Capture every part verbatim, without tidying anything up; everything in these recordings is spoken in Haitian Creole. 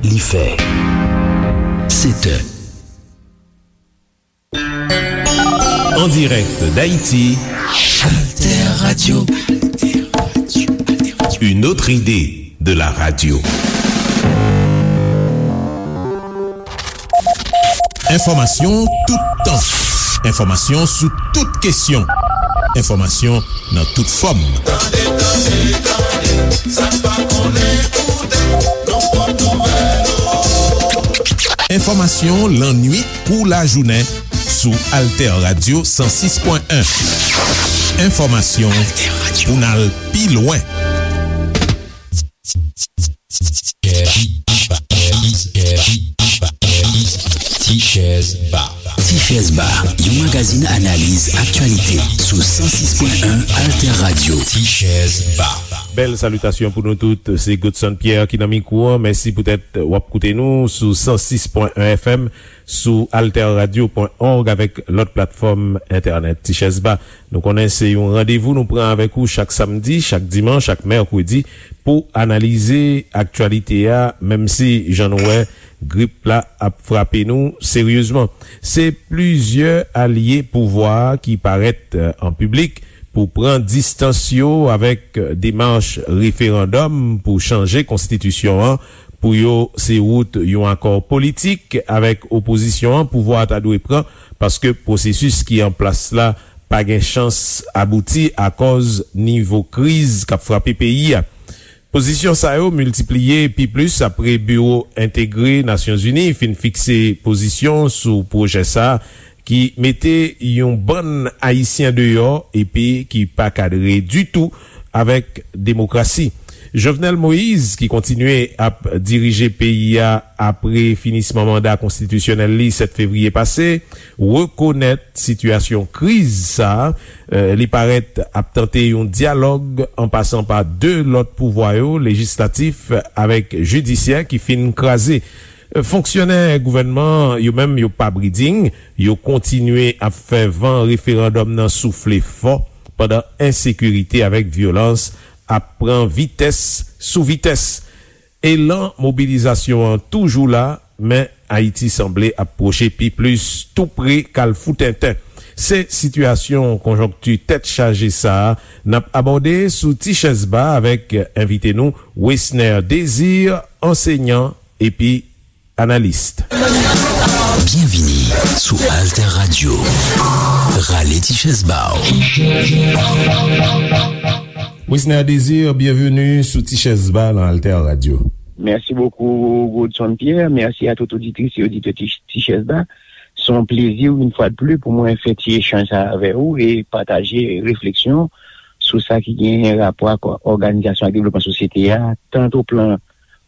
Li fè sèt è. En direct d'Haïti, Alter Radio. Une autre idée de la radio. Enfòmasyon toutan. Enfòmasyon sou tout kesyon. Enfòmasyon nan tout fòm. Tande, tande, tande, sa n pa konnen koute, nou pot nouvèl ou. Enfòmasyon lannuit kou lajounen sou Alter Radio san sis pwen en. Enfòmasyon pou n al pi lwen. Tichèz Ba. Tichèz Ba, yon magazin analiz aktyalite sou san sis pwen en Alter Radio. Tichèz Ba. Bèl salitasyon pou nou tout. Se Godson Pierre ki nan mikwo an. Mèsi poutèt w ap koute nou sou san sis pwen en F M, sou alter radio pwen org avèk lòt platfòm entènèt. Tichèz Ba, nou konnen se yon randevou nou pran avèk ou chak samdi, chak dimanch, chak mèkredi pou analize aktyalite a, menm si jan nou wè grip la ap frape nou seryezman. Se plizyè alye pouvwa a ki parèt, eh, an piblik pou pran distans yo avèk demach referandòm pou chanje konstitisyon an. Pou yo, se wout yon akò politik avèk opozisyon an pouvwa a ta dwe pran, paske pwosesis ki an plas la pa gen chans abouti akòz nivo kriz k ap frape peyi a. Pozisyon sa yo miltipliye pi plis apre Biwo Entegre Nasyonzini fin fikse pozisyon sou pwojè sa a, ki mete yon bann Ayisyen deyò epi ki pa kadre ditou avèk demokrasi. Jovenel Moïse, ki kontinye ap dirije peyi a apre finisman manda konstitisyonèl li sèt fevriye pase, rekonèt sitiyasyon kriz sa a. Eh, li parèt ap tante yon dyalòg an pasan pa de lòt pouvwa yo, lejislatif avèk jidisyè, ki fin kraze. Fonksyonè gouvènman yo menm, yo pa briding, yo kontinye ap fè van referandòm nan soufle fò, pandan ensekirite avèk vyolans ap pran vitès sou vitès. Elan mobilizasyon an toujou la, men Ayiti sanble ap pwoche pi plis tou pre kalfou tenten. Se sitiyasyon konjonkti tèt chaje sa a n ap abòde sou Tichèz Ba avèk envite nou, Wesner Désir, ansenyan epi analis. Byenvini sou Alter Radio. Rale ti chèz ba w. Wisner Désir, byenveni sou Ti Chèz Ba nan Alter Radio. Mèsi bokou, Godson Pierre. Mèsi a tout oditris e oditè Ti, Ti Chèz Ba. Se yon plezi, yon fwa de plis, pou mwen fè ti echanj sa avè ou e pataje refleksyon sou sa ki genyen rapò ak òganizasyon ak devlopman sosyete a, tant o plan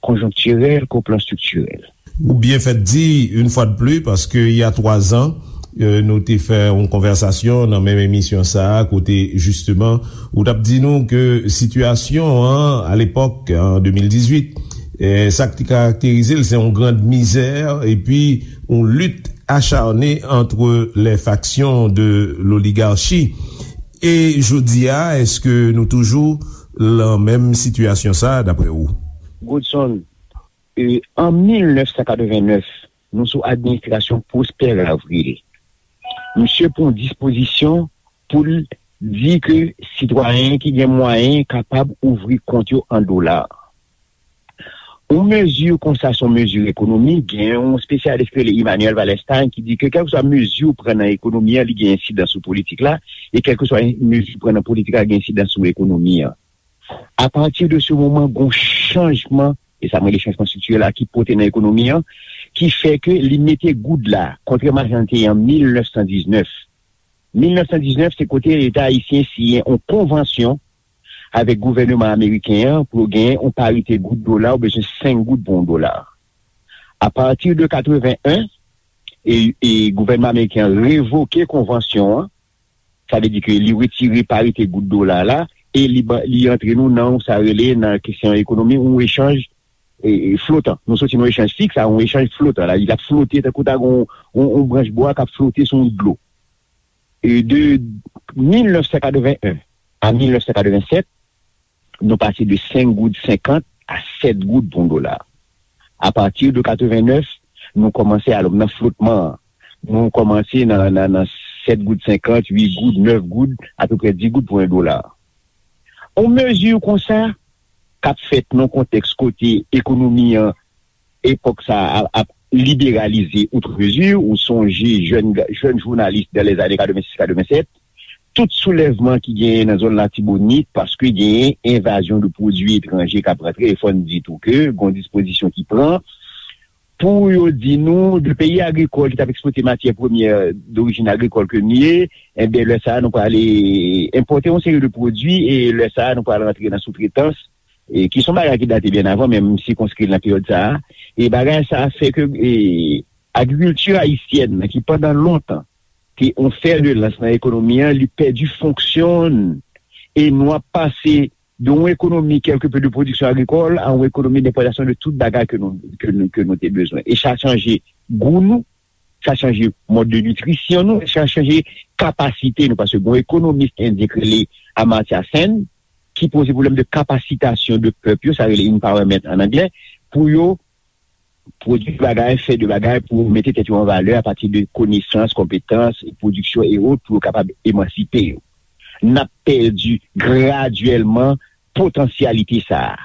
konjonktirèl ke o plan estriktirèl. Ou byen fèt di, yon fwa de plis, paske il y a trois ans, euh, nou te fè yon konvèsasyon nan menm emisyon sa a, kote, jisteman, ou t ap di nou ke sitiyasyon an, alepòk, an de mil dizuit, eh, sa k te karakterize l, se yon grand misère, epi yon lutte acharnée entre les factions de l'oligarchie. E jodi a, èske nou toujou lan menm sitiyasyon sa a, daprè ou? Godson, e, an mil nèf san katreven nèf, nou sou administrasyon Prosper Avril. Misye pran dispozisyon pou l di ke sitwayen ki gen mwayen kapab ouvri kont yo an dola. Yon mezi konsa se yon mezi ekonomik. Gen yon espesyalis ki rele Immanuel Wallerstein ki di ke kèlkeswa mezi w pran nan ekonomi an, li gen ensidans sou politik la, e kèlkeswa mezi w pran nan politik la, gen ensidans sou ekonomi an. Apati de se moman, gen yon chanjman, e sa m rele chanjman estriktirèl la, ki pote nan ekonomi an, ki fè ke li mete goud la, kontrèman a jan l te ye an mil nèf san diznèf. Mil nèf san diznèf, se kote Leta ayisyen siyen yon konvansyon avèk gouvèneman ameriken an pou yo genyen yon parite goud dola, ou bezwen senk goud pou yon dola. Apati de katreven en, e, e gouvènman ameriken an revoke konvansyon an, sa vle di ke li retire parite goud dola la, e li ba, li antre nou nan sa rele nan kesyon ekonomi, yon echanj, e, e, flotan. Nou soti nan yon echanj fiks a yon echanj flotan. La, li ap flote tankou ta gen yon, yon, yon branch bwa k ap flote sou yon dlo. E de mil nèf san katreven en a mil nèf san katreven sèt, nou pase de senk goud senkant a sèt goud pou yon dola. Apati de katrevenèf, nou kòmanse alò nan flotman an. Nou kòmanse nan, nan, nan sèt goud senkant, uit goud, nèf goud, apeprè dis goud pou yon dola. Yon mezi konsa k ap fèt nan kontèks kote ekonomi an, epòk sa a, ap liberalize outre mezi, ou sonje jèn, jèn jounalis dan lèzane katrevensis katrevennsèt, tout soulèvman ki genyen nan zòn Latibonit, paske genyen envazyon de pwodui etranje k ap rantre, e fò n di tou ke gon dispozisyon ki pran pou yo di nou, de peyi agrikòl ki t ap ekspòte matyè premyè dorijin agrikòl ke n ye, enben, lè sa a, nou prale enpòte yon seri de pwodui, e lè sa a, nou prale rantre nan soutretans, e ki se yon bagay ki date byen avan, men m sikonskri l nan peryòd sa a. E bagay sa a fè ke, e, agrikilti ayisyèn nan, ki pandan lontan te yon fè de lans nan ekonomi an, li pèdi fonksyon l. E nou ap pase de yon ekonomi kèlkepe de pwodiksyon agrikòl a yon ekonomi denpòtasyon de tout bagay ke nou, ke nou, ke nou te bezwen. E sa chanje gou nou, sa chanje mòd de nitrisyon nou, sa chanje kapasite nou. Paske gon ekonomis endyen k rele Amartya Sen, ki poze pwoblèm de kapasitasyon de pèp yo, sa rele empowerment an anglè, pou yo pwodui bagay, fè de bagay pou mete tèt yo an valè apati de konesans, konpetans, pwodiksyon e ot pou yo kapab emansipe yo. N ap pèdi gradyèlman potansyalite sa a.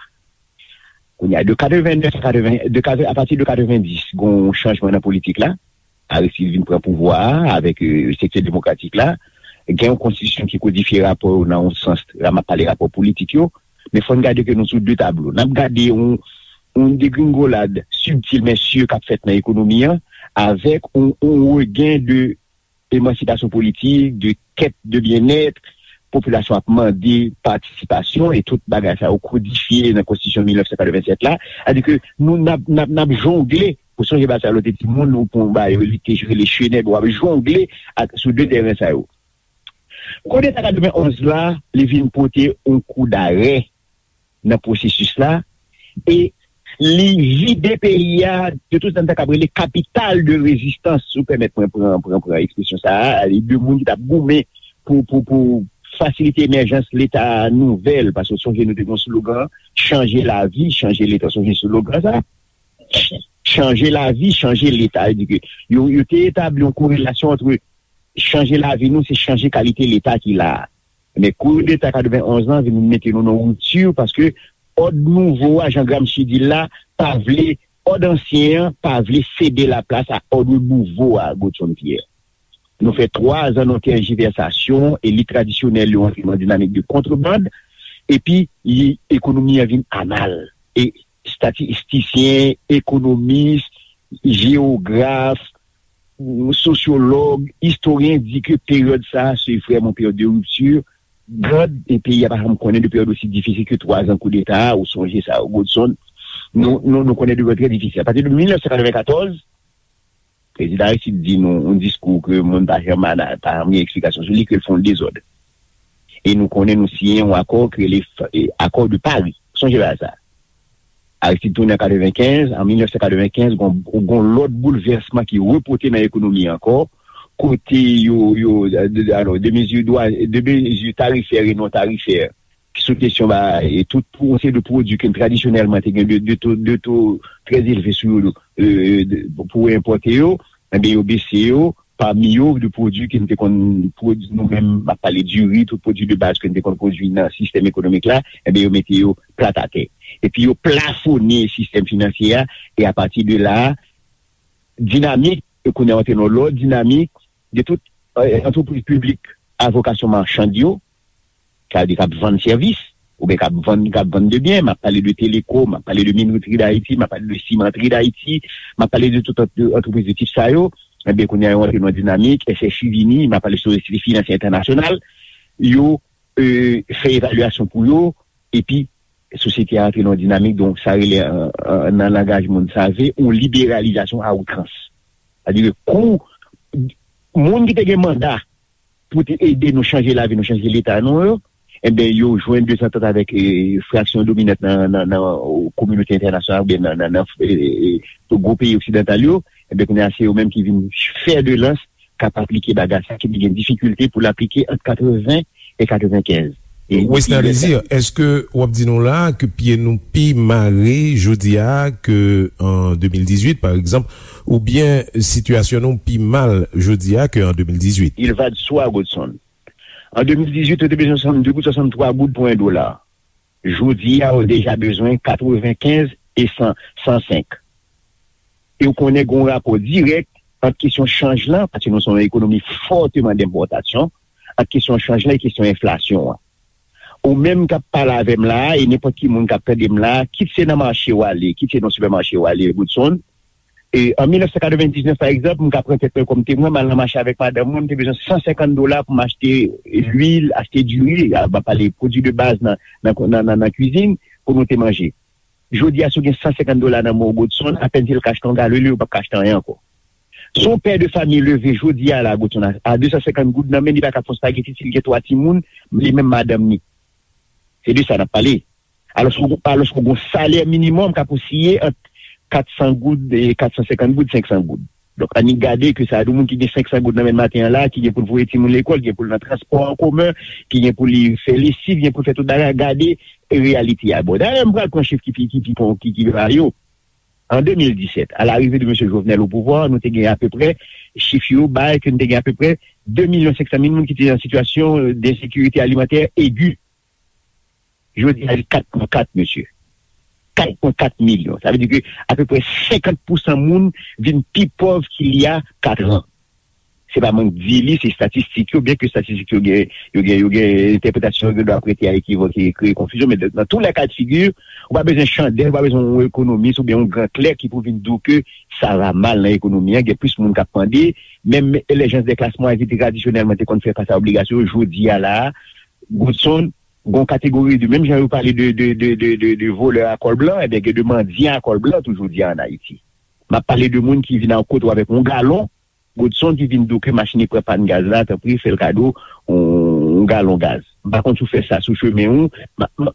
Kounye a, de katrevennèf a katreven, de katre-, apati de katrevendis, gon chanjman nan politik la. Aristide vin pran pouvwa a avèk, e, sektè demokratik la. Gen yon konstitisyon ki kodifye rapò yo nan yon sans, la m ap pale rapò politik yo, men fò n gade ke nou sou de tablo. N ap gade yon, yon degringolad sibtil men si k ap fèt nan ekonomi an, avèk yon, yon regen de emansipasyon politik, de kèt de byennèt, popilasyon ap mande patisipasyon, e tout bagay sa yo kodifye nan konstitisyon mil nèf san katrevennsèt la. Sètadi ke nou, n ap, n ap, n ap jongle, ou sonje bagay sa lè w te timoun, ou pran yon bagay, li te rele chenèb, w ap jongle ak, sou de tèren sa yo. Koudeta katrevenonz la, li vin pote yon kou darè nan pwosesis la, e li vide peyi a de tout sa n ta kab rele kapital de rezistans, si w pèmèt mwen pran, pran, pran ekspresyon sa a, e de moun ki t ap goumen pou, pou, pou fasilite emèjans Leta nouvèl, paske w sonje nou te gen yon slogan, chanje lavi, chanje Leta, w sonje slogan sa? Chanje lavi, chanje Leta. Sa vle di ke yo, yo te etabli yon korelasyon ant chanje lavi nou, se chanje kalite Leta ki la a. Men koudeta katrevenonz lan vin mete nou nan ripti, paske òd nouvo a, jan Gramsci di l la, pa vle, òd ansyen an pa vle sede laplas a òd nouvo a, Godson Pierre. Nou fè twa zan nan tèjivèsasyon, elit tradisyonèl yo antre nan dinamik de kontreband, epi li, ekonomi an vin anal. E estatistisyen, ekonomis, jewograf, sosyològ, istoryen di ke peryòd sa a se vrèman peryòd de ripti. Gad, e peyi a pa janm konnen de peryòd osi difisil ke twa zan koudeta a, ou sonje sa, Godson. Nou, nou, nou konnen de peryòd trè difisil. Apati de mil nèf san katrevenkatòz, Prezidan Aristide di nou yon diskou ke moun pa janm ana-, pa janm gen eksplikasyon sou li, ke l fè yon dezòd. E nou konnen nou siyen yon akò ki rele f-, e, Accord de Paris. Sonje bagay sa. Aristide tounen an katrevenkenz, an mil nèf san katrevenkenz, gon, gon lòt boulvèsman ki repote nan ekonomi ankò, kote yo, yo, de, de, alò, de mezi dwa, de mezi tarifè e non tarifè, ki sou kesyon ba, e tout pou yon seri de pwodui ke tradisyonèlman te gen de, de to, de to trè elve sou yo, e, de, pou enpòte yo, enben, yo bese yo, pami yo, de pwodui ke n te konn pwodui nou menm, m ap pale diri, tout pwodui de baz ke n te konn pwodui nan sistèm ekonomik la, enben, yo mete yo plat atè. Epi yo plafone sistèm finansye a, e apati de la, dinamik, e kounye a antre nan lòt dinamik, de tout, e, antrepriz piblik a vokasyon machann yo, sa vle di k ap vann sèvis, oubyen k ap vann, k ap vann de byen, m ap pale de Telekom, m ap pale de Minoterie d'Haïti, m ap pale de Cimenterie d'Haïti, m ap pale de tout ant-, antrepriz de tip sa yo, enben, kounye a yo antre nan dinamik, S H I vini, m ap pale Sosyete Finansye Entènasyonal, yo, e, fè evalyasyon pou yo, epi sosyete a antre nan yon dinamik, donk, sa rele, an, an, nan langaj moun save, yon liberalizasyon a outrans. Sètadi ke kou, moun ki te gen manda pou te ede nou chanje lavi nou, chanje leta nou yo, enben, yo jwenn de zantant avèk, e, fraksyon dominant nan, nan, nan, o, kominote entènasyonal oubyen nan, nan, nan, e, e, e, gwo peyi oksidantal yo, enben, kounye a, se yo menm ki vin fè de lans, k ap aplike bagay sa, ki te gen difikilte pou l aplike ant katreven e katrevenkenz. Wesner Désir, èske w ap di nou la ke pye nou pi mare jodi a ke an de mil dizuit, pa egzanp, oubyen sitiyasyon nou pi mal jodi a ke an de mil dizuit? Il va de soi, Godson. An de mil dizuit, yo te bezwen swasannde goud, swasanntwa goud pou en dola. Jodi a, yo deja bezwen katrevenkenz e san, san senk. E w konnen gen yon rapò dirèk ant kesyon chanj lan, paske nou se yon ekonomi fòteman denpòtasyon, ant kesyon chanj lan e kesyon enflasyon an. Ou menm k ap pale avè m la a, e nenpòt ki moun k ap tande m la a, kit se nan mache w ale, kit se nan sipèmache w ale, Goodson, e an mil nèf san katrevendiznèf, pa egzanp, m ka pran tèt mwen kòm temwen, m al nan mache avèk madanm mwen, m te bezwen san senkant dola pou m achte lwil, achte diri, a, m ap pale pwodui de baz nan, nan, nan, nan, nan kwizin, pou nou te manje. Jodi a, si w gen san senkant dola nan men w, Godson, apèn si l ka achte yon galon lwil, ou p ap ka achte anyen ankò. Si yon pè de fanmi leve jodi a la, Godson, a, a de san senkant goud nan men, li pa ka fè yon spageti, si l gen twa timoun, li menm madanm ni. Se de sa n ap pale. Alòske, alòske yon salè minimòm ka posiye ant kat san goud, e kat san senkant goud, senk san goud. Donk, annik gade ke sa a di moun ki gen senk san goud nan men maten an la, ki gen pou l voye timoun lekòl, ki gen pou l nan transpò an komen, ki gen pou li fè lesiv, ki gen pou l fè tout bagay, gade reyalite a. Bon, dayè, m pral pran chif ki pi, ki pi, ki pi ba yo. An de mil disèt, à l'arrivée de Mesye Jovenel au pouvoir, nou te gen apeprè, chif yo bay ke nou te gen apeprè de milyon senk san mil moun ki te nan sitiyasyon, euh, d'insécurité alimentaire aiguë. Jodi a, li kat pwen kat, mesye. Kat pwen kat milyon. Sa vle di ke apeprè senkant pousan moun vin pi pòv ki li a kat an. Se pa mwen k di li, se estatistik yo, byen ke estatistik yo gen, yo gen, yo gen entèpretasyon yo gen dwa prete a ekivòk e kreye konfizyon, men nan tou lè ka de figi, ou pa bezwen chandèl, ou pa bezwen yon ekonomis oubyen yon gran klè ki pou vin di w ke sa va mal nan ekonomi an, gen plis moun k ap mande, menm lè jans de klas mwayèn ki tradisyonèlman te konn fè fas a obligasyon yo, jodi a la a, Goodson, gon kategori de, menm jan yo pale de, de, de, de, de, de volè a kòl blan, ebyen gen de mandyan a kòl blan tou jodi a an Ayiti. M ap pale de moun ki vin a kote w avèk yon galon, Godson ki vin di w ke machin li pran pàn gaz la, tanpri, fè l kado yon, yon galon gaz. M pa konn si w fè sa sou chemen ou. Ma, ma,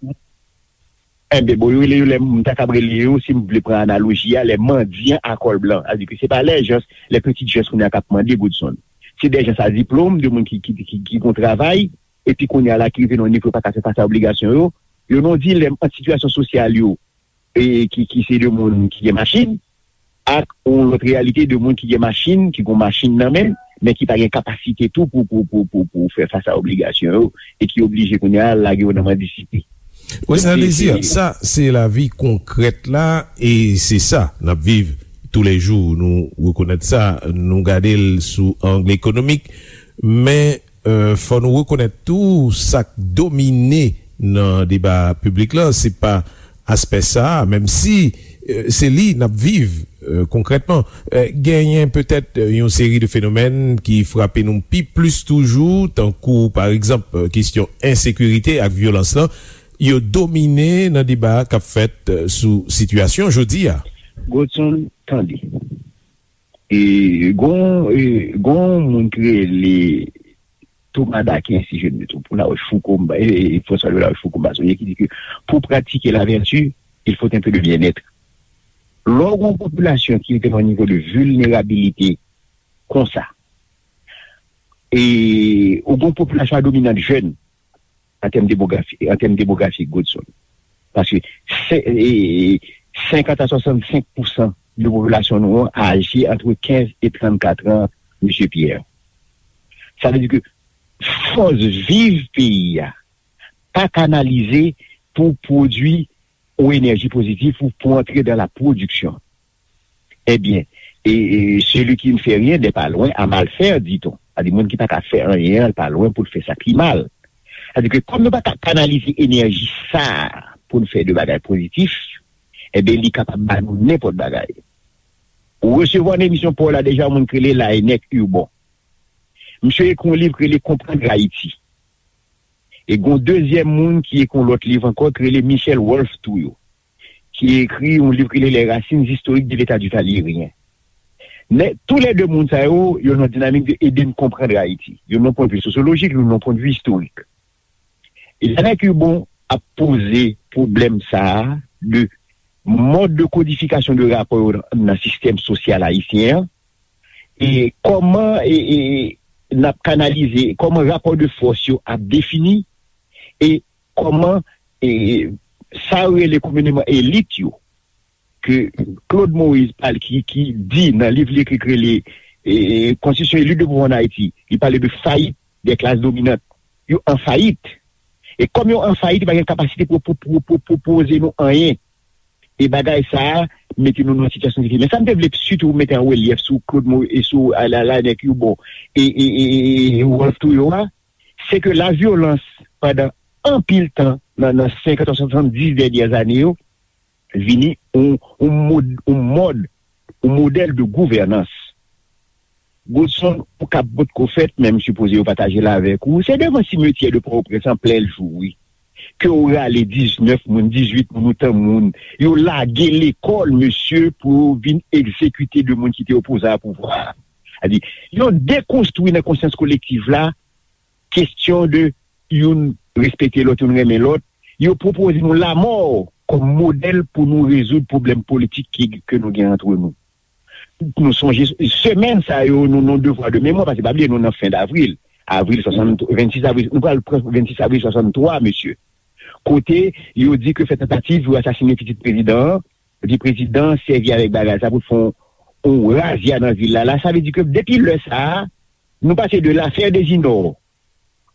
enben, bon, yo rele yo lè, m ta kab rele yo, si m vle pran analoji a, lè mandyan a kòl blan. Sa vle di ke se pa lè jans, lè pitit jans kounye a k ap mande Godson. Se dè jans a diplòm, de moun ki, ki, ki, ki gon travay, epi kounye a la ki rive nan yon nivo yo pa ka fè fas a obligasyon yo. Yo nan yon dilèm ant sitiyasyon sosyal yo, e ki, ki se de moun ki gen machin, ak yon lòt reyalite de moun ki gen machin, ki gon machin nan men, men ki pa gen kapasite tou pou, pou, pou, pou, pou fè fas a obligasyon yo, e ki oblije kounye a lage yo nan mandisite. Wi, sa vle di, sa se lavi konkrèt la, e se sa n ap viv toulejou. Nou rekonèt sa, nou gade l sou ang ekonomik, men, euh, fò nou rekonèt tou sa k domine nan deba piblik la, se pa aspè sa a, menm si, euh, se li n ap viv, euh, konkrètman. Euh, genyen petèt, euh, yon seri de fenomèn ki frape nou pi plis toujou, tankou, pa egzanp, euh, kesyon ensekirite ak vyolans lan, yo domine nan deba k ap fèt, euh, sou sitiyasyon jodi a. Godson, tande. E gon, e gon moun ki rele Thomas d'Aquin, si je ne me trompe, ou Larochefoucauld, m pa, e, e, François de Larochefoucauld, m pa sonje, ki di ke pour pratiquer la vertu, il faut un peu de bien-être. Lè w gen yon popilasyon ki rete nan yon nivo de vilnerabilite konsa, e ou gen yon popilasyon a dominant jèn, an tèm demografi, an tèm demografik, Godson. Paske se, e, senkant a swasannsenk pousan de popilasyon nou an aje ant kenz e trannkat an, Mesye Pierre. Sa vle di ke fòs viv peyi a pa kanalize pou pwodui yon enèji pozitif ou pou antre dans la production. Ebyen, e, e, celui qui ne fait rien n'est pas loin à mal faire, dit-on. Sa di moun ki pa ka fè anyen an, l pa lwen pou l fè sa ki mal. Sa di ke kòm nou pa ka kanalize enèji sa a pou n fè de bagay pozitif, ebyen, li kapab ba nou nenpòt bagay. Ou resevwa nan emisyon pa w la deja yon moun ki rele Laennec Hurbon. Misye ekri yon liv ki rele Comprendre Haïti. E gon dezyèm moun ki ekri yon lòt liv ankò ki rele Michel Wolff Touyo, ki ekri yon liv ki rele Les racines historiques de l'État du Valérien. Men, toulède moun sa yo, yo nan dinamik de ede n konprann Ayiti. Youn nan pwennvi sosyolojik, youn nan pwennvi istorik. E Laennec Hurbon ap poze pwoblèm sa a de mòd de kodifikasyon de rapò yo nan, nan sistèm sosyal ayisyen an, e kòman, e, e, n ap kanalize, kòman rapò de fòs yo ap defini, e kòman e, sa yo rele komineman elit yo, ke Claude Moïse pale, ki, ki di nan liv li ekri, ki rele e, Constitution et lutte de pouvoir en Haïti, li pale de fayit de klas dominant. Yo an fayit. E kòm yo an fayit, yo pa gen kapasite pou, pou, pou, pou pwopoze nou anyen. E bagay sa a mete nou nan sitiyasyon difisil. Men sa m te vle sitou mete an relyèf sou Claude Mo e sou a, la, la, nèg yo bon, e, e, e, e, e Rolph Trouillot a, se ke lavyolans pandan anpil tan nan, nan senkant a swasanndis dènyè ane yo vini yon, yon mod, yon mòd, yon modèl de gouvènans. Godson, ou kap potko fèt, men m sipoze yo pataje l avèk ou. Se devan simetyè de Pòtoprens an plen jou, wi. Ke w rale diznèf moun, dizuit moun, otan moun, yo lage lekòl, mesye, pou yo vin egzekite de moun ki te opoze a pouvwa a. Sa di, yo dekonstwi nan konsyans kolektiv la kesyon de youn respekte lòt, youn renmen lòt. Yo pwopoze nou lanmò kòm modèl pou nou rezoud pwoblèm politik ki, ke nou gen antre nou. Nou sonje semèn sa yo, nou, nou devwa de memwa, paske pa bliye nou nan fen davril. Avril swasanntrwa, vennsis avril, nou pral pran vennsis avril swasanntwa, mesye. Kote yo di ke fè tantativ pou asasine pitit prezidan an, yo di prezidan an sèvi avèk bagay sa pou fè yon, yon razya nan vil la. La, sa vle di ke depi lè sa a, nou pase de l'affaire Désinor,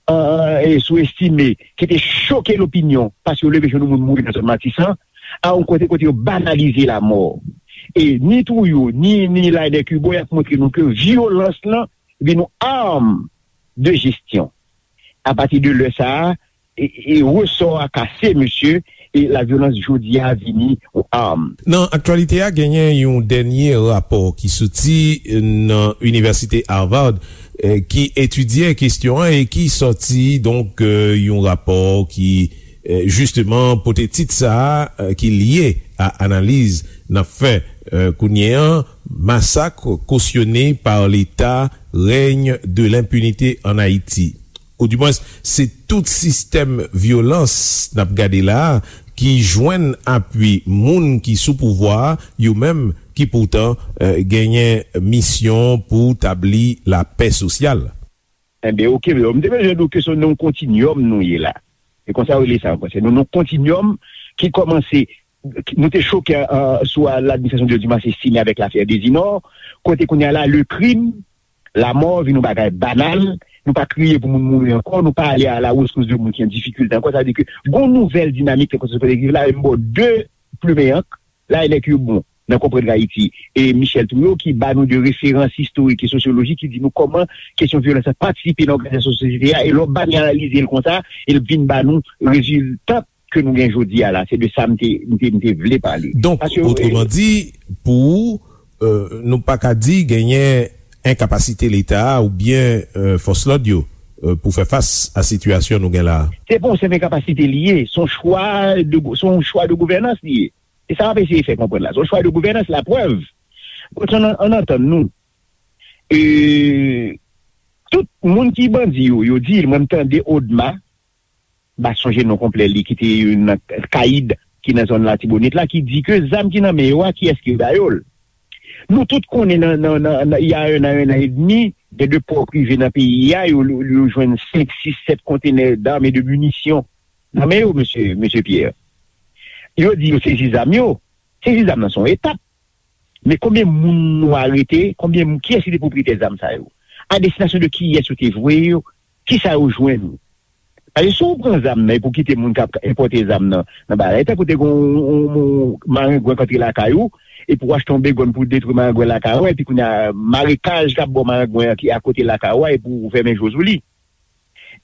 an, e sou Estimé, ki te choke lopinyon, paske yo leve jou nou moun mouri nan zòn Matisan, a yon kote, kote yo banalize lanmò. E ni Trouillot, ni, ni Laënec Hubaut, y ap montre nou ke vyolans lan vin yon arm de jesyon. Apati de lè sa a, e, e resò a kase, mesye, e lavyolans jodi a vini yon arm. Nan aktyalite a, genyen yon dènye rapò ki soti, eh, nan Inivèsite Harvard, eh, ki etidye kesyon an e ki sòti, donk, eh, yon rapò ki, eh, jisteman, pote tit sa a, eh, ki lye a analiz n ap fè, eh, kounye an, masak cautionné par l'État, règne de l'impunité en Haïti. Oudimwens, se tout sistèm vyolans n ap gade la a ki jwenn apui moun ki sou pouvwa a, yo menm ki poutan, eh, genyen misyon pou tabli lapè sosyal. Enben, oke, m te bezwen di w ke se nan yon kontinyòm nou ye la. Se konsa yo rele sa an fransè. Nou nan yon kontinyòm ki kòmanse, nou te choke, eh, sou, eh, ladministrasyon de Dumas Estimé avèk lafè Désinor, kote kounye a la, le crime, lanmò vin yon bagay banal, nou pa kriye pou moun mouri ankò, nou pa ale a la rescousse de moun ki an difikilte ankò. Sa vle di ke gon nouvèl dinamik nan konsyans kolektiv la, e m ba w de plimen ank, Laënec Hubaut, nan Konprann Ayiti, e Michel Trouillot, ki ba nou de referans istorik e sosyolojik, ki di nou kòman kesyon vyolans lan patisipe nan òganizasyon sosyete a, e lè w banalize l konsa, e l vin ba nou rezilta ke nou gen jodi a la. Se de sa m te, m te, m te vle pale. Donk, paske, otreman di, pou ou, eh, nou pa ka di genyen enkapasite Leta a oubyen, eh, fòs lòd yo, eh, pou fè fas a sitiyasyon nou gen la a? Se pa yon senp enkapasite li ye, se yon chwa de, se yon chwa de gouvènans li ye. E sa m ap eseye fè konprann la. Se yon chwa de gouvènans, laprèv. An, an, ann antann nou. E, tout moun ki bandi yo, yo di, mwen m tande Odma, m pa sonje non konplè li, ki te nan Kayid, ki nan zòn Latibonit la, ki di ke zam ki nan men yo a, kiyès ki ba yo l? Nou tout konnen nan, nan, nan, nan, il y a un an, un an et demi, gen de pò prive nan peyi a, yo, yo, yo jwenn senk, sis, sèt kontenè d'armes et de munitions nan men yo, mesye, mesye Pierre. Yo di yo sezi zam yo. Sezi zam nan se yon etap. Men konbyen moun nou arete? Konbyen moun, kiyès ki te pwopriyetè zam sa yo? A destinasyon de kiyès yo te voye yo? Kisa yo jwenn? Paske si w pran zam nan epi w kite moun k ap enpòte zam nan, nan bagay, tankou te gen yon, yon, yon marengwen k antre lakay ou, epi w achte yon begòn pou detwi marengwen lakay ou, epi kounye a, marekaj k ap ba w marengwen an ki akote lakay ou a, epi w fèmen je w sou li.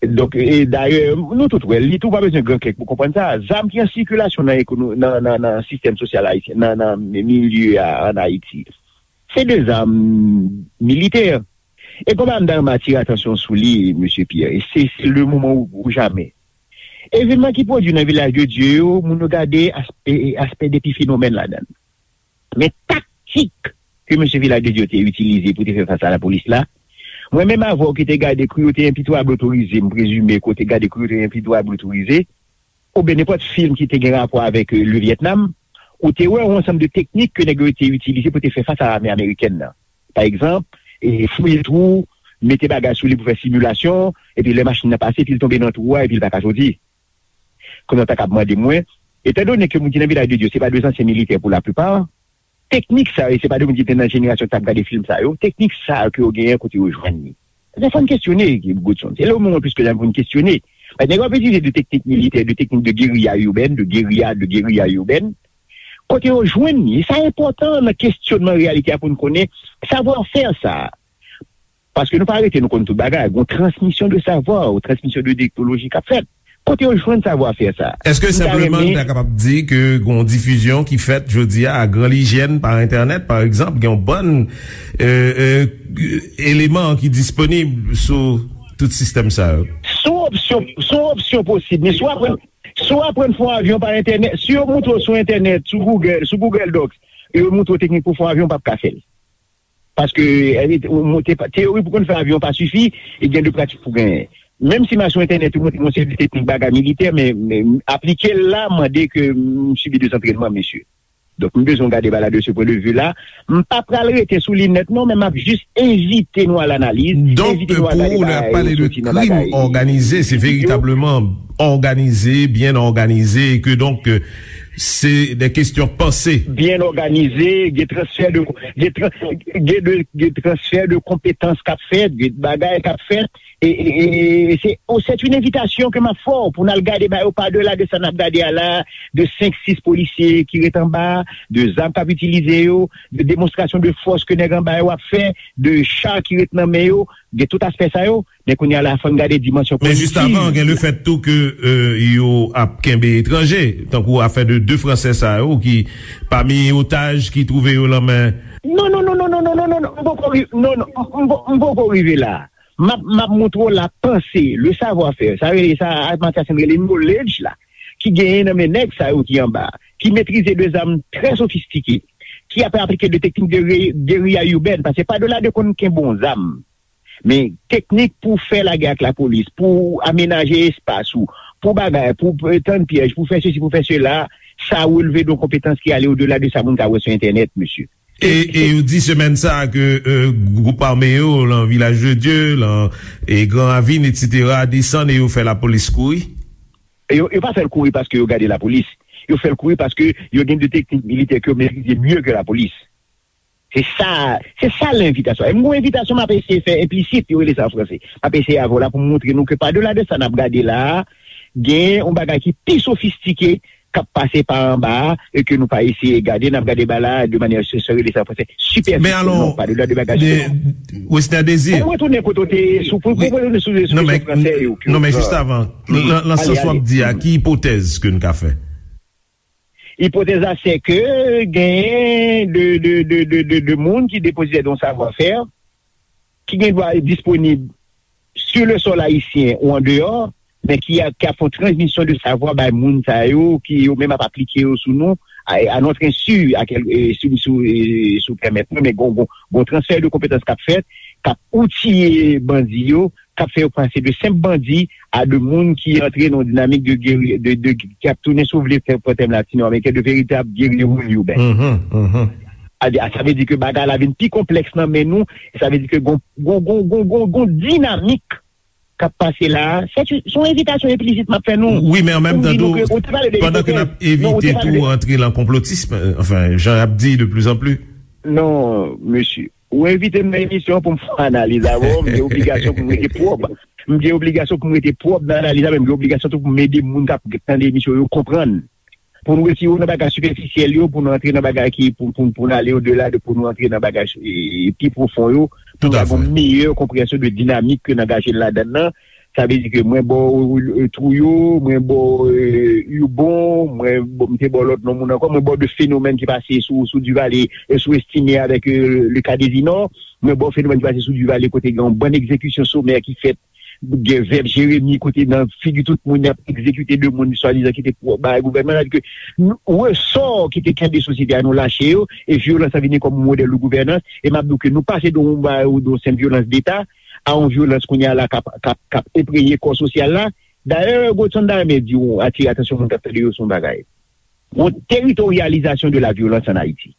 Donk, e dayè, nou tout wè, li tou pa bezwen gran kèk pou konprann sa. Zam ki an sikilasyon nan ekono-, nan, nan, nan sistèm sosyal ayisyen, nan, nan milye a ann Ayiti, se de zam militè. E konba m ta renmen atire atansyon sou li, mesye Pierre, e se, se le moman ou, ou jamè. Evènman ki pwodui nan Vilaj de Dye yo, moun yo gade aspè, aspè de epifinomèn ladan l. Men taktik ke mesye Vilaj de Dye te itilize pou te fè fas a lapolis la, mwen menm avè w ki te gade Cruauté impitoyable autorisée, m prezime ke w te gade Cruauté impitoyable autorisée, oubyen nenpòt fim ki te gen rapò avèk, euh, le Vietnam, ou te wè yon ansanm de teknik ke nèg yo te itilize pou te fè fas a lame amerikèn nan. Pa egzanp, e, fouye twou, mete bagay sou li pou fè similasyon, epi lè machin nan pase, epi l tonbe nan twou a, epi l pa ka soti. konnen w ta kab mande mwen, etandone ke moun ki nan Vilaj de Dye, se pa de zansyen militè pou laplipa, teknik sa yo, se pa de moun ki te nan jenerasyon ki t ap gade fim sa yo, teknik sa yo ke yo genyen kote yo jwenn li. Se fò n kestyone, Godson. Se le moman plis ke jamè pou n kestyone. Paske nèg yo ap itilize de teknik militè, de teknik de guérilla urbaine, de guérilla, de guérilla urbaine. Kote yo jwenn li, sa enpòtan nan kestyonman reyalite a pou n konnen savwa fè sa. Paske nou pa rete, nou konn tout bagay. Gon transmisyon de savwa, ou transmisyon de teknoloji k ap fèt. Kote yo jwenn savwa fè sa? Èske M ta senpleman renmen n ta kapab di ke gon difizyon ki fèt jodi a, a gran lijyèn, pa entènèt, pa egzanp, gen yon bann euh, euh, eleman ki disponib sou tout sistèm sa yo? Sou opsyon, sou opsyon posib, men si w aprann, si w aprann fè yon avyon pa entènèt, si yo montre w sou entènèt, sou Google, sou Google Docs, yo montre w teknik pou fè yon avyon, w p ap ka fè l. Paske eh, ou monte pa- teyori pou konn fè avyon pa sifi, e gen de pratik pou genyen. Menm si m al sou entènèt, ou montre m yon seri de teknik bagay militè, men, men aplike l la mande ke m sibi de zantrènman, mesye. Donk, m bezwen gade bagay la de ce point de vue là. M pa pral rete sou li nèt, non, men m ap jis envite nou a lanaliz, Donk, envite nou a pou gade ou, lè y ap bagay pale de soti nan krim bagay òganize, se yo. veritableman òganize, byen òganize, e ke donk, euh, se de kesyon panse. Byen òganize, gen transfè de, gen, tran, gen, de, gen transfè de konpetans k ap fèt, gen bagay k ap fèt, e, e, e, e se, oh, c'est une invitation ke m ap fè w pou n al gade ba yo pa delà de sa n ap gade a la, de senk, sis polisye ki ret anba, de zam k ap itilize yo, de demonstrasyon de fòs ke nèg anba yo ap fè, de cha ki ret nan men yo, gen tout aspè sa yo, men kounye a la, fò n gade dimansyon Men jis avan, gen lefèt tou ke euh, yo ap kenbe etranje, tankou afè de de Fransè sa yo ki pami otaj ki twouve yo nan men Non, non, non, non, non, non, non, non, non, m poko ri- non, non, m- m- m poko rive la. M ap, m ap montre w la panse, le savoir-faire, sa rele sa, a Matyasen rele knowledge la, ki genyen nan men nèg sa yo ki anba, ki metrize de zam trè sofistike, ki ap aplike de teknik de re- guérilla urbaine, paske pa delà de konn kenbe yon zam, men teknik pou fè lagè ak lapolis, pou amenaje espas ou, pou bagay, pou tann pyèj, pou fè sesi, pou fè sela, sa releve de yon konpetans ki ale odela de sa moun ka wè sou entènèt, mesye. E, e yo di semèn sa a ke euh, gwoup ame yo lan Vilaj de Dye, lan e Gran Ravin, etsetera, desann e yo fè lapolis kouri. Yo, yo pa fè l kouri paske yo gade lapolis. Yo fè l kouri paske yo gen de teknik militè ke yo metrize mye ke lapolis. Se sa, se sa lenvitasyon. E m gon envitasyon m ap eseye fè enplisit, yo rele sa an franse. M ap eseye avè w la pou m montre nou ke pa delà de sa n ap gade la a, gen yon bagay ki pi sofistike k ap pase pa anba a e ke nou pa eseye gade, n ap gade bagay la a de manyè, se sa yo rele sa an franse, sipèfisyèl, non, pa delà de bagay de, sou Wesner Désir. Pou m retounen kote w te ye, sou, pou, pou m retounen sou, sou kesyon fransè yo, ke, non, men jis avan, lan, lan sans w ap di a, ki ipotèz ke n ka fè? Ipotèz la, se ke genyen de, de, de, de, de, de moun ki depozitè de yon savwa fè, ki gen dwa disponib sur le sol ayisyen ou andeyò, men ki a, ki ap fè yon transmisyon de savwa bay moun sa yo, ki yo menm ap aplike yo sou nou, à, à notre insu, à quel, euh, sou, sou, euh, sou pèmèt mwen, men gon, gon, gon transfè de konpetans k ap fèt, k ap outiye bandi yo, k ap fè yo pase de senp bandi a de moun ki antre nan yon dinamik de, geri- de, de, ki ap tounen, si w vle, fè pran tèm latino-ameriken, de veritab guerrero urbain. Mhm, mhm. A, a, sa vle di ke bagay la vin pi konplèks nan men nou, e sa vle di ke gon, gon, gon, gon, gon, gon dinamik k ap pase la a. Se yon envitasyon enplisit m ap fè nou. Wi, men an menm tan tou, pandan ke n ap evite tou antre lan konplotism, euh, anfen, jan y ap di de plus en plus. Non, mesye. Ou envite m nan emisyon an pou m fè analiz avè w, m gen obligasyon pou m rete pwòp. M gen obligasyon pou m rete pwòp nan analiz la, men m gen obligasyon tou pou m ede moun k ap tande emisyon yo konprann. Pou nou retire w nan bagay sipèfisyèl yo, pou nou antre nan bagay ki, pou, pou, pou nou ale odela de, pou nou antre nan bagay e, pi pwofon yo, pou nou gen yon meyè konpreyansyon de dinamik ke n angaje n ladann nan. Sa vle di ke mwen ba w, euh, Trouillot, mwen ba w, euh, Hurbon, mwen ba w, m te ba w lòt non moun ankò, mwen ba w de fenomèn ki pase sou, sou Duvalier, euh, sou Estimé avèk, euh, le ka Désinor, mwen ba w fenomèn ki pase sou Duvalier kote gen yon bann egzekisyon somè ki fèt, gen vèb Jeremi kote nan figi tout moun y ap egzekite de moun swadizan ki te pou bay gouvènman, sa vle di ke nou, resò ki te kenbe sosyete a nou lache yo, e vyolans la vini kòm modèl de gouvènans, e m ap di w ke nou pase de yon, de yon senp vyolans deta, a yon vyolans kounye a la k ap, k ap, k ap enpreye kò sosyal la. Dayè, Godson ta renmen di w, atire atansyon moun k ap tande yo sou yon bagay. Yon teritoryalizasyon de la vyolans an Ayiti.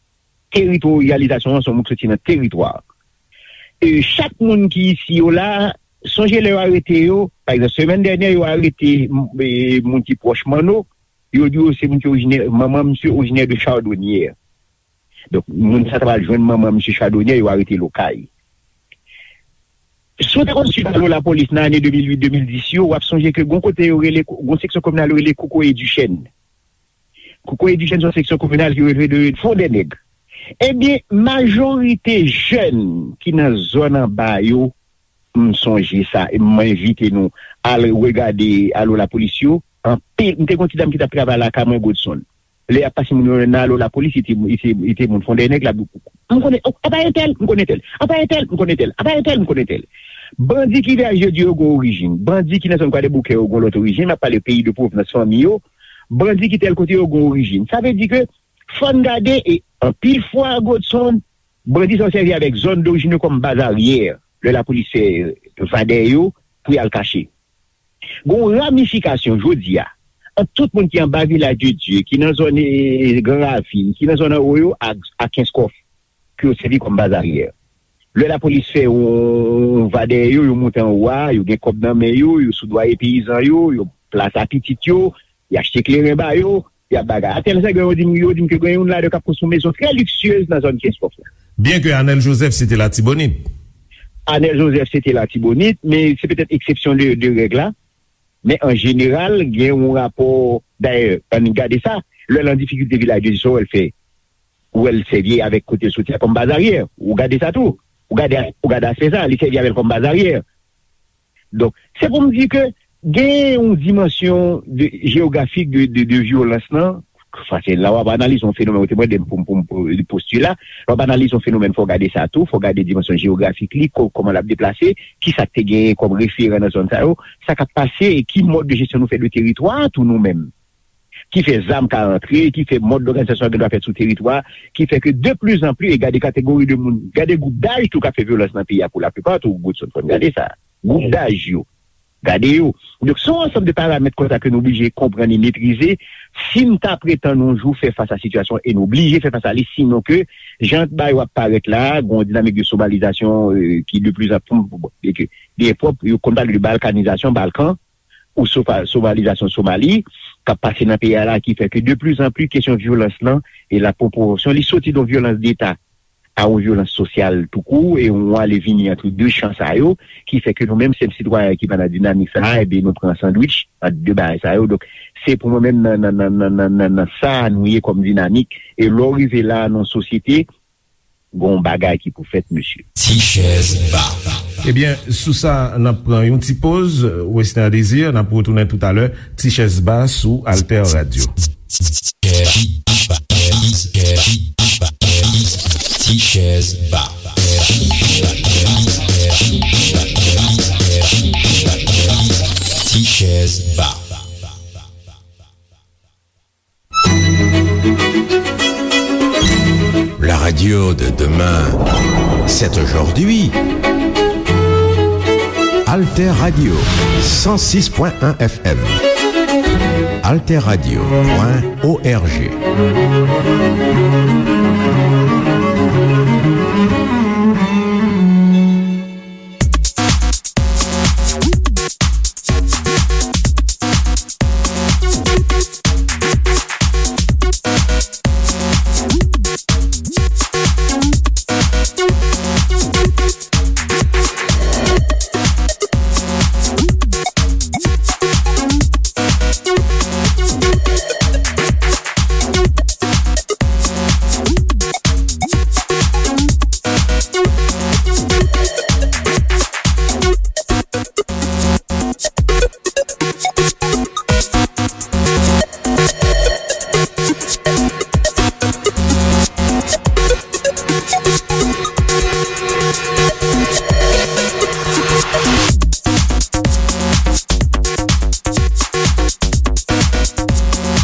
Teritoryalizasyon an se yon mo k soti nan teritwa. E chak moun ki isi yo la, Sonje lè yo arete yo, pa egzanp, semèn dènyè, yo arete m- e, moun ki pwòch Manno, yo di yo se moun ki orijinè, manman misye orijinè de Chardonnière. Donk, moun sa ta pral jwenn manman misye Chardonnière, yo arete l Okay. Si w te konn swiv alo lapolis nan ane de mil uit, de mil dis yo, w ap sonje ke gon kote yo rele, gon seksyon kominal yo rele Kokoye Dichèn. Kokoye Dichèn se yon seksyon kominal ki releve de Fondènèg. Ebyen, majorite jèn ki nan zòn anba yo, m sonje sa, e m envite nou al regade alo lapolis yo. Anpil, m te gon ti dam ki t ap travay lakay mwen, Godson. Lè y ap pase moun yo nan alo lapolis, li te, li te, li te moun Fondènèg la. M konnen, oh, apa entèl, m konnen tèl. Apa entèl, m konnen tèl. Apa entèl, m konnen tèl. Bandi ki vwayaje yo di yo gon orijin. Bandi ki nan zòn Kwadèboukè yo gon lòt orijin. M ap pale peyi de pwovnans fanmi yo. Bandi ki tèl kote yo gon orijin. Sa vle di ke fò n gade, e anpil fwa, Godson, bandi sa yo sèvi avèk zòn dorijin yo kòm baz aryè. Lè lapolis fè vadè yo pou y al kache. Gon ramifikasyon jodi a ant tout moun ki anba Vilaj de Dye, ki nan zòn, e, Gran Ravin, ki nan zòn anwo yo ak, ak Kenskòf, ke yo sèvi kòm baz aryè. Lè lapolis fè yon, yon va dèyè yo, yo monte anwo a, yo gen kòb nan men yo, yo soudwaye peyizan yo, yo plase pitit yo, y achte kleren ba yo, y ap bagay. Atèl Sègwen, yo di m, yo di m ke gen youn ladan yo k ap konstwi yon mezon trè liksyez nan zòn Kenskòf la. Byen ke Anèl Jozèf se te Latibonit. Anèl Jozèf se te Latibonit, men se petèt eksepsyon de, de règ la. Men an jeneral, gen yon rapò, dayè, ann gade sa, lè l an difikilte Vilaj de Dye, sa w wè l fè, ou wè l sèvi avèk kote l soti a kòm baz aryè. Ou gade sa tou. Ou gade, ou gade aspè sa, li sèvi avè l kòm baz aryè. Donk, se pou m di ke gen yon dimansyon de, jewografik de, de, de vyolans lan. Paske la w ap analize yon fenomèn, ou te mande m pou m, pou m, pou m postile la. Lè w ap analize yon fenomèn, fò w gade sa tou, fò w gade dimansyon jewografik li, ko-, kòman l ap deplase, kisa k te genyen kòm referan nan zòn sa yo, sa k ap pase e ki mòd de jesyon nou fè de teritwa a tou nou menm. Ki fè zam ka antre, ki fè mòd dòganizasyon an gen dwa fèt sou teritwa, ki fè ke de plizanpli, e gade kategori de moun, gade gwoup daj tou k ap fè vyolans nan peyi a pou laplipa tou, Godson, fò n gade sa. Gwoup daj yo, gade yo. Donk, se yon ansanm de paramèt konsa ke nou blije konprann e metrize, si n ta pretann yon jou fè fas a sitiyasyon, e nou blije fè fas a li, sinon ke, jan bagay yo ap parèt la, gen yon dinamik de somalizasyon, e, ki de plizanpli, e ke, byen pwòp, yo konn pale de balkanizasyon, Balkan, ou sofa-, somalizasyon Somali, k ap pase nan peyi a la, ki fè ke de plizanpli kesyon vyolans lan e lapwoporsyon li soti de yon vyolans deta a yon vyolans sosyal toukou, e yon ale vini ant de chan sa yo, ki fè ke nou menm senp sitwayen ki pa nan dinamik sa a, ebyen nou pran sandwich ant de bagay sa yo. Donk, se pou mwen menm nan, nan, nan sa nou ye kòm dinamik. E lè w rive la nan yon sosyete, gon bagay ki pou fèt, mesye. Ti chèz ba. Ebyen, sou sa, n ap pran yon ti poz, Wesner Désir, n ap retounen toutalè, Ti chèz ba sou Alter Radio. Ti chèz ba. Ti chèz ba. La radio de demain, c'est aujourd'hui. Alter Radio, cent six point un F M. Alter Radio point O R G.